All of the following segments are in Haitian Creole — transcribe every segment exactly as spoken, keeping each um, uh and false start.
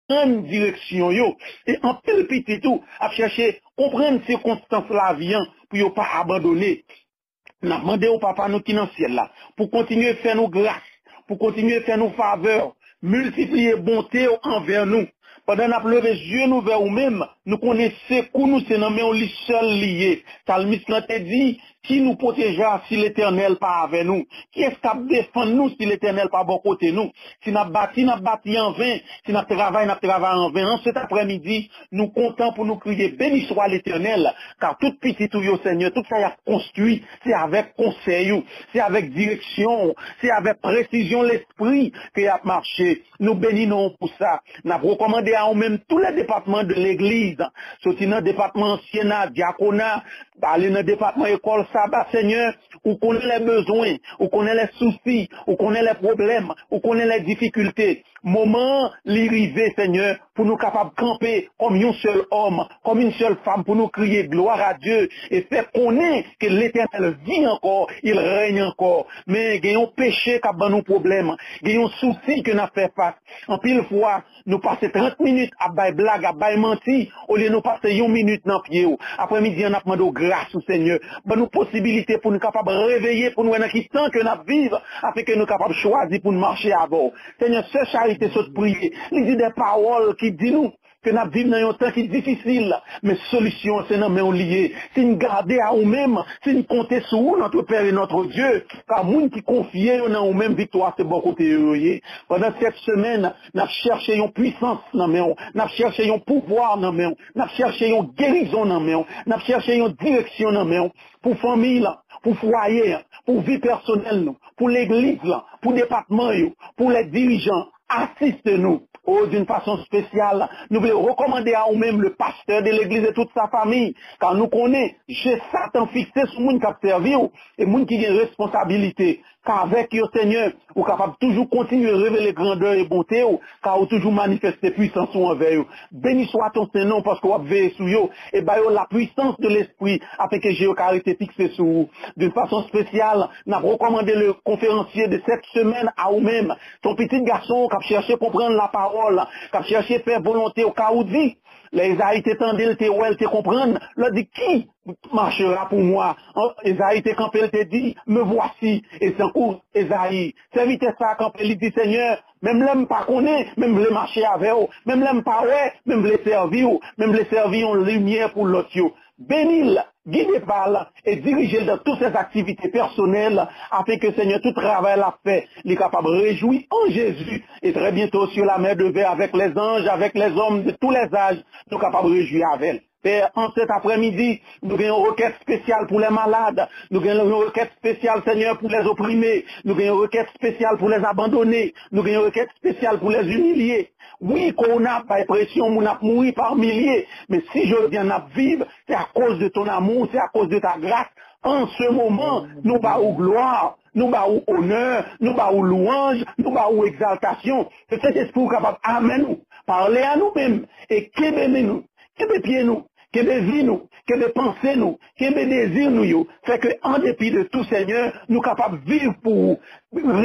konprann direksyon yo. E anpil pitit ou ap chèche konprann sikonstans lavi an pou yo pa abandone. N ap mande w, Papa nou ki nan syèl la, pou kontinye fè nou gras, pou kontinye fè nou favè, miltipliye bonte w anvè nou. Pandan n ap leve zye nou vè ou menm, nou konnen sekou nou se nan men w li sèl li ye. Salmis lan te di, ki nou pwoteje a si Letènèl pa avè nou? Kiyès k ap defann nou si Letènèl pa bò kote nou? Si n ap bati, n ap bati anven. Si n ap travay, n ap travay anven. An sèt aprèmidi, nou kontan pou nou kriye, beni swa Letènèl, ka tout pitit ou yo, Senyè, tout sa y ap konstwi, se avèk konsèy ou, se avèk direksyon ou, se avèk presizyon Lespri ke y ap mache. Nou beni non w pou sa. N ap rekòmande a ou menm tou lè depatman de legliz, soti nan depatman ansyen a, dyakona, ale nan depatman ekòl saba, Senyè, ou konnen lè bezwen, ou konnen lè sousi, ou konnen lè pwoblèm, ou konnen lè difikilte. Moman an, li rive, Senyè, pou nou kapab kanpe kòm yon sèl òm, kòm yon sèl fanm, pou nou kriye gloire à Dieu e fè konnen ke Letènèl vit encore, il règne encore. Men gen yon peche k ap ban nou pwoblèm, gen yon sousi ke n ap fè fas. Anpil fwa, nou pase trant minit ap bay blag, ap bay manti, olye nou pase yon minit nan pye w. Aprèmidi an, n ap mande w gras ou, Senyè. Ban nou posibilite pou nou kapab reveye, pou nou wè nan ki tan ke n ap viv, afin ke nou kapab chwazi pou n mache avè w. Senyè, sè Charite sot priye. Li di de pawòl ki di nou ke n ap viv nan yon tan ki difisil, men solisyon an se nan men w li ye. Si n gade a ou menm, si n konte sou ou, notre Père et notre Dieu, ka moun ki konfye yo nan ou menm, viktwa se bò kote yo yo ye. Pandan sèt semèn, n ap chèche yon pwisans nan men w, n ap chèche yon pouvwa nan men w, n ap chèche yon gerizon nan men w, n ap chèche yon direksyon nan men w, pou fanmi lan, pou fwaye an, pou vi pèsonèl nou, pou legliz lan, pou depatman yo, pou lè dirijan, asiste nou. O, d'une façon spéciale, nou vle rekòmande a ou menm, le pasteur de l'église et toute sa famille, ka nou konnen je Satan fikse sou moun k ap sèvi w e moun ki gen responsabilite. Ka avèk yo, Senyè, ou kapab toujou kontinye revele grandè e bonte w, ka ou toujou manifeste pwisans ou anvè yo. Beni swa ton sen non, paske w ap veye sou yo e ba yo la puissance de l'esprit, afin ke je yo ka rete fikse sou ou. D'une façon spéciale, n ap rekòmande le conférencier de cette semaine a ou menm, ton pitit gason k ap chèche konprann lapawòl, k ap chèche fè volonte w, ka ou di, lè Ezayi te tande l, te wè l, te konprann, l di, qui marchera pour moi? Ezayi te kanpe, l te di, me voici. E tankou Ezayi, sèvitè sa a kanpe, li di, Senyè, menm lè m pa konnen, men m vle mache avè w. Menm lè m pa wè, men m vle sèvi w. Men m vle sèvi yon limyè pou lòt yo. Beni l, gide pa l, e dirije l dans toutes ses activités personnelles, afin ke, Senyè, tout travay l ap fè, li kapab rejwi an Jezi. E très bientôt sur la mer de verre avec les anges, avec les hommes de tous les âges, nou kapab rejwi avè l. Pè, an sèt aprèmidi, nou gen yon rekèt espesyal pou lè malad. Nou gen yon rekèt espesyal, Senyè, pou lè oprime. Nou gen yon rekèt espesyal pou lè abandone. Nou gen yon rekèt espesyal pou lè imilye. Wi, kowona ap bay presyon, moun ap mouri pa milye. Men si jodi a n ap viv, se akoz de ton amour, se akoz de ta grâce. An se moman, nou ba ou glwa, nou ba ou onè, nou ba ou lwanj, nou ba ou egzaltasyon. Ke Sentespri ou kapab amèn ou, pale a nou menm, e kenbe men nou, kenbe pye nou, kenbe vi nou, kenbe panse nou, kenbe dezi nou yo. Fè ke, an depi de tou, Senyè, nou kapab viv pou ou,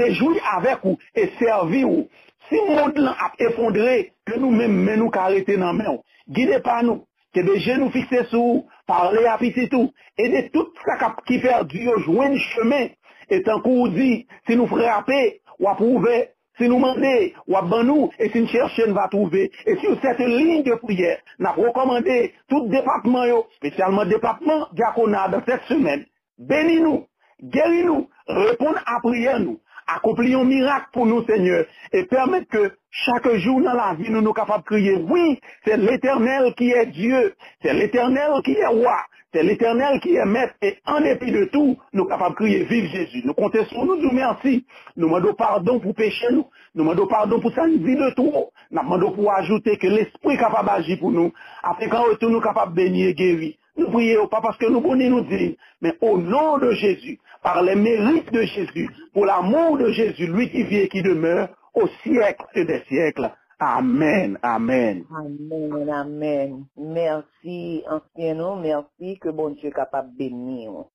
rejwi avèk ou e sèvi ou. Si mond lan ap efondre, ke nou menm, men nou ka rete nan men w. Gide pa nou, kenbe je nou fikse sou ou, pale a pitit ou, ede tout sa k ap, ki pèdi yo jwenn chemen. E tankou ou di, si nou frape, w ap ouvè, si nou mande, w ap ban nou, e si n chèche, n va twouve. E sur cette ligne de prière, n ap rekòmande tout depatman yo, espesyalman depatman dyakona, dans cette semaine. Beni nou, geri nou, reponn a priyè nou, akonpli yon mirak pou nou, Senyè, e pèmèt ke chak jou nan lavi nou, nou kapab kriye, wi, c'est l'Éternel qui est Dieu, c'est l'Éternel qui est roi, c'est l'Éternel qui est maître, e an depi de tou, nou kapab kriye, viv Jezi. Nou konte sou ou, nou di w mèsi. Nou mande w padon pou peche nou. Nou mande w padon pou sa n di de twò. N ap mande w pou w ajoute ke Lespri kapab aji pou nou, afin ke an retou nou kapab beni e geri. Nou priye w pa paske nou bon ni nou diy, men au nom de Jésus, par les mérites de Jésus, pour l'amour de Jésus, lui qui vit et qui demeure au siècle des siècles. Amen, amen. Amen, amen. Mèsi, ansyen nou, mèsi, ke Bondye kapab beni w.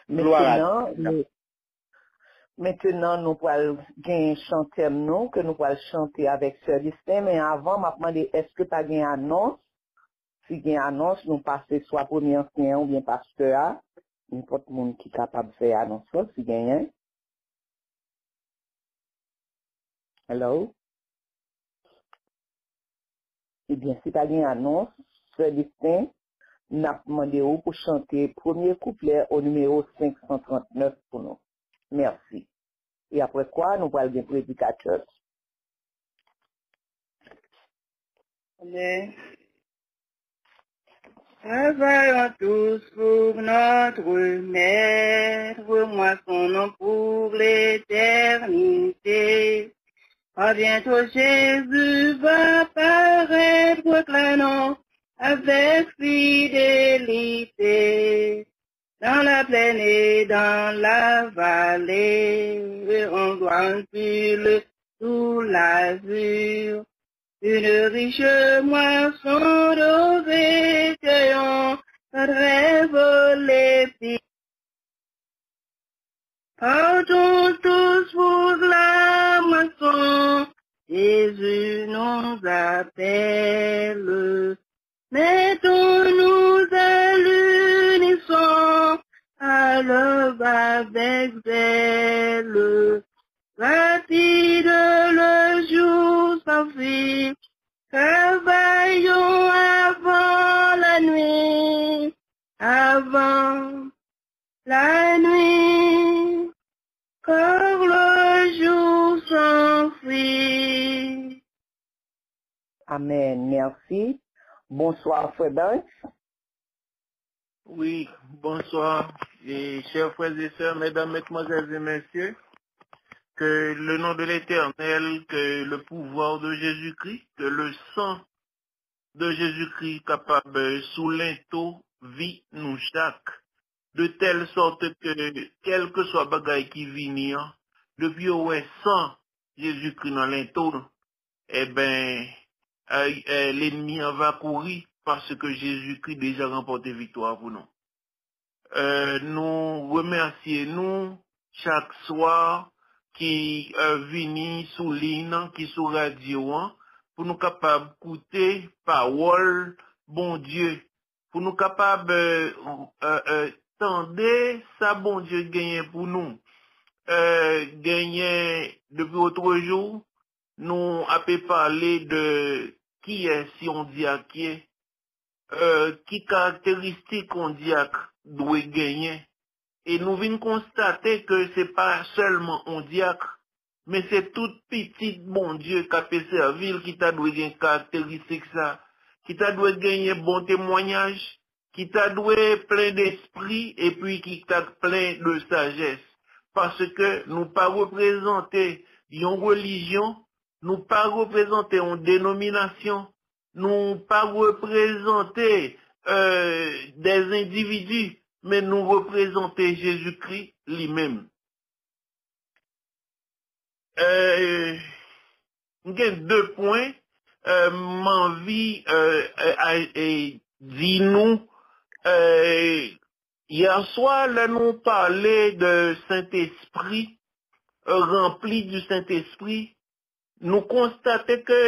Gloire à Mentnan, Dieu. Mentenan, nou pral gen chantè nou, ke nou pral chante avèk Sè Destin, men avan, m ap mande, èske pa gen anons? Si gen anons, nou pase swa premye ansyen an oubyen pastè a, nenpòt moun ki kapab fè anons lan, si genyen. Hello? Ebyen, si pa gen anons, Sè Destin, n ap mande w pou chante premye kouplè o nimewo senk san trant nèf pou nou. Mèsi. E apre kwa, nou pral gen predikatè. Amen. Travaillons tous pour notre maître, moissonnons pour l'éternité. Car bientôt Jésus va paraître, proclamons avec fidélité. Dans la plaine et dans la vallée, on doit anpile sous l'azur. Une riche moisson de recueillons rêve les filles. Partons tous pour la moisson, Jésus nous appelle. Mettons-nous à l'unisson, à l'œuvre avec zèle. Rapide le jour s'enfuit, travaillons avant la nuit, avant la nuit, car le jour s'enfuit. Amen. Merci. Bonsoir, Frère Banks. Oui, bonsoir. Et chers frères et sœurs, mesdames, mesdemoiselles et messieurs, que le nom de l'Éternel, que le pouvoir de Jésus-Christ, que le sang de Jésus-Christ kapab sou lento vi nou chak, de telle sorte que, kèlkeswa bagay ki vini an, depi yo wè san Jezikri nan lento l, enben, lènmi an va kouri, paske Jezikri deja ranpòte viktwa pou nou. Nou remèsye nou chak swa ki vini sou liy nan, ki sou radyo an, pou nou kapab koute pawòl Bondye, pou nou kapab tande sa Bondye genyen pou nou. Genyen, depi otrejou, nou ape pale de kiyès yon dyak ye, ki karakteristik yon dyak dwe genyen. E nou vin konstate ke se pa sèlman yon dyak, men se tout pitit Bondye k ape sèvi l ki ta dwe gen karakteristik sa, ki ta dwe genyen bon temwayaj, ki ta dwe plen despri epi ki ta plen de sajès. Paske nou pa reprezante yon relijyon, nou pa reprezante yon denominasyon, nou pa reprezante des endividi, men nou reprezante Jezikri li menm. M gen de pwen m anvi di nou. Yèswa, lè nou pale de Sentespri, ranpli di Sentespri, nou konstate ke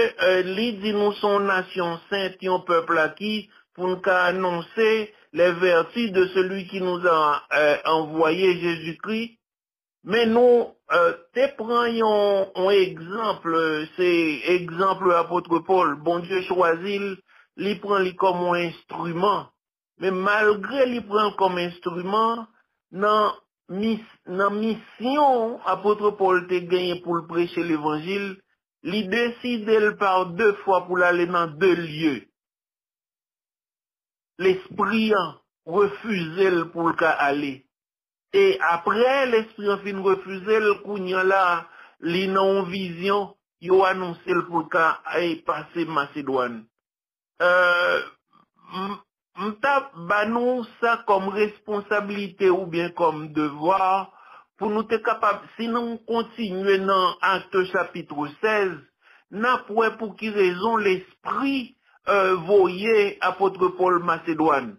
li di nou se yon nasyon sent, yon pèp aki, pou n ka anonse les vertus de celui qui nous a envoyé, Jésus-Christ. Men nou te pran yon, yon egzanp, se egzanp apot Pòl, Bondye chwazi l, li pran li kòm yon enstriman. Men malgre li pran l kòm enstriman, nan, mis, nan misyon apot Pòl te genyen pou l preche levanjil, li deside l pa de fwa pou l ale nan de lye. Lespri an refize l pou l ka ale. E apre lespri an fin refize l, kounye a la, li nan yon vizyon, yo anonse l pou l ka pase Masedwàn. M t ap ba nou sa kòm responsablite oubyen kòm devwa pou nou te kapab, si nou kontinye nan Akte chapit sèz, n ap wè pou ki rezon Lespri voye apot Pòl Masedwàn.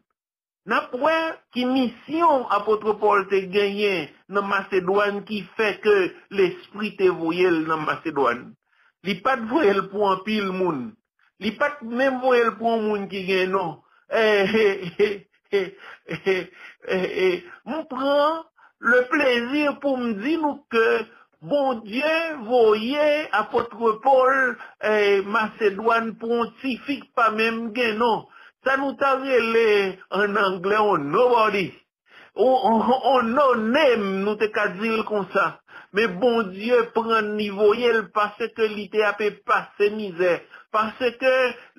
N ap wè ki misyon apot Pòl te genyen nan Masedwàn ki fè ke Lespri te voye l nan Masedwàn. Li pa t voye l pou anpil moun. Li pa t menm voye l pou yon moun ki gen non. Eh, eh, eh, eh, eh, eh, eh, eh. M pran le plezi pou m di nou ke Bondye voye apot Pòl eh, Masedwàn pou yon tifi k pa menm gen non. Sa nou ta rele an anglè yon nobody. On, on, on no name, nou te ka di l konsa. Men Bondye pran n li voye l paske li te ape pase mizè. Paske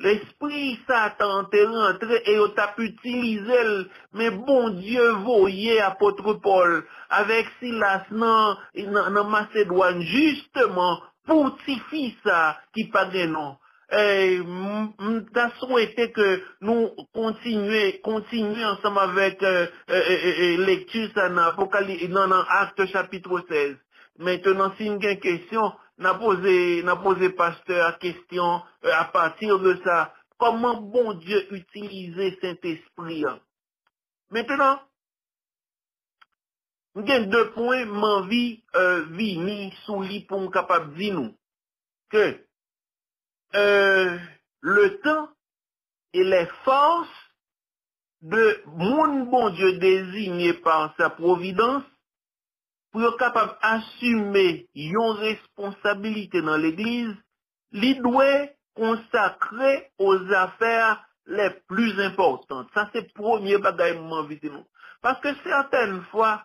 lespri Satan te rantre e yo t ap itilize l. Men Bondye voye apot Pòl avèk Silas nan, nan, nan Masedwàn, jisteman, pou tifi sa ki pa gen non. Eh, m, m ta swete ke nou kontinye, kontinye ansanm avèk eh, eh, eh, eh, eh, lekti sa nan Apokali-, nan, nan Akte chapit sèz. Mentenan, si n gen kesyon, n a poze, n a poze pastè a kesyon eh, apati de sa. Kòman Bondye itilize Sentespri a? Mentenan, m gen de pwen m anvi eh, vini sou li pou m kapab di nou ke eh, le temps et les forces de moun Bondye désigné par sa providence pou yo kapab asime yon responsabilite nan legliz, li dwe konsakre aux affaires les plus importantes. Sa se premye bagay m anvi di nou. Paske sètèn fwa,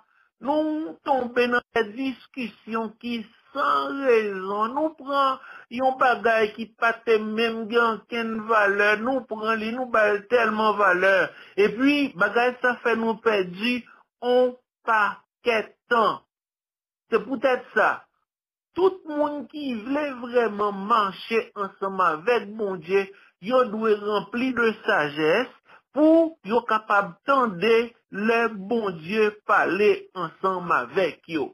nou tonbe nan de diskisyon ki san rezon. Nou pran yon bagay ki pa te menm gen ankenn valè, nou pran li, nou ba l tèlman valè. Epi, bagay sa fè nou pèdi on pakèt tan. Se poutèt sa, tout moun ki vle vrèman mache ansanm avèk Bondye, yo dwe ranpli de sajès pou yo kapab tande lè Bondye pale ansanm avèk yo.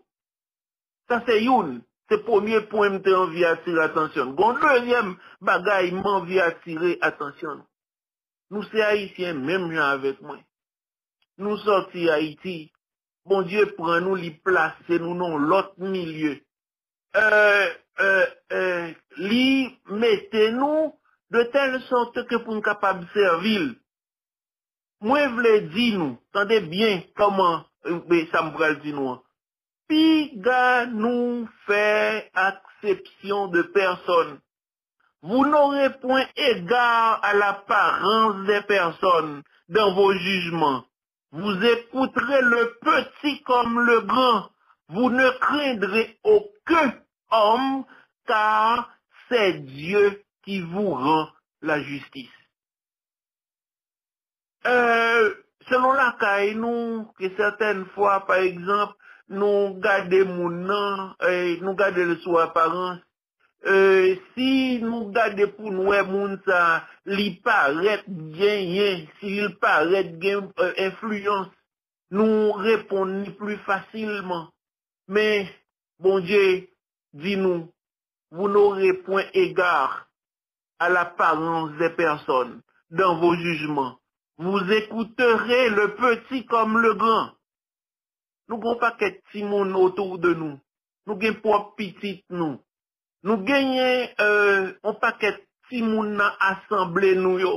Sa se youn, se premye pwen m te anvi atire atansyon n. Gon dezyèm bagay m anvi atire atansyon nou. Nou se Ayisyen menm jan avèk mwen. Nou sòti Ayiti. Bondye pran nou, li plase nou nan yon lòt milye. Eh, eh, eh, li mete nou de tèl sòt ke pou n kapab sèvi l. Mwen vle di nou, tande byen kòman eh, sa m pral di nou an. Piga nou fè aksepsyon de pèsòn. Vous n'aurez point égard à l'apparence des personnes dans vos jugements. Vous écouterez le petit comme le grand. Vous ne craindrez aucun homme, car c'est Dieu qui vous rend la justice. Eh, selon lakay nou, ke sètèn fwa, pa egzanp, nou gade moun nan, eh, nou gade l sou aparans, eh, si nou gade pou n wè moun sa, li parèt genyen, si li parèt gen eh, enfliyans, nou reponn li pli fasilman. Men, Bondye di nou, vous n'aurez point égard à l'apparence des personnes dans vos jugements. Vous écouterez le petit comme le grand. Nou gen yon pakèt timoun otou de nou. Nou gen pwòp pitit nou. Nou genyen eh, yon pakèt timoun nan asanble nou yo.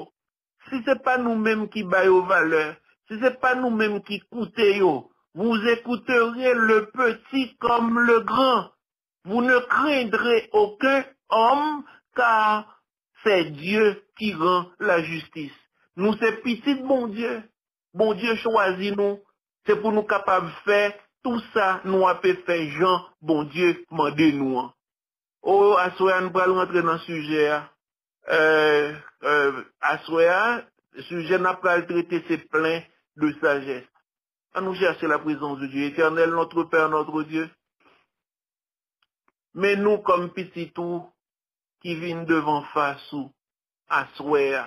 Si se pa nou menm ki ba yo valè, si se pa nou menm ki koute yo, vous écouterez le petit comme le grand. Vous ne craindrez aucun homme, car c'est Dieu qui rend la justice. Nou se pitit Bondye. Bondye chwazi nou. Se pou nou kapab fè tou sa nou ape fè jan Bondye mande nou an. O, aswè a, n pral rantre nan sijè a. Eh, eh, aswè a, sijè n ap pral trete se plen de sajès. Ann nou chèche la prezans de Dye. Etènèl, notre Père, notre Dieu, men nou kòm pitit ou ki vin devan fas ou aswè a.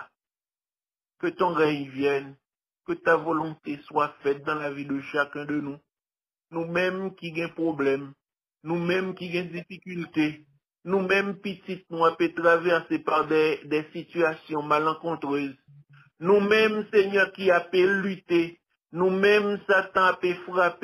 Que ton règne vienne, que ta volonté soit faite dans la vie de chacun de nous. Nou menm ki gen pwoblèm, nou menm ki gen difikilte, nou menm pitit nou ape travèse pa de, de sitiyasyon malankontrez. Nou menm, Senyè, ki ape lite, nou menm, Satan ape frape.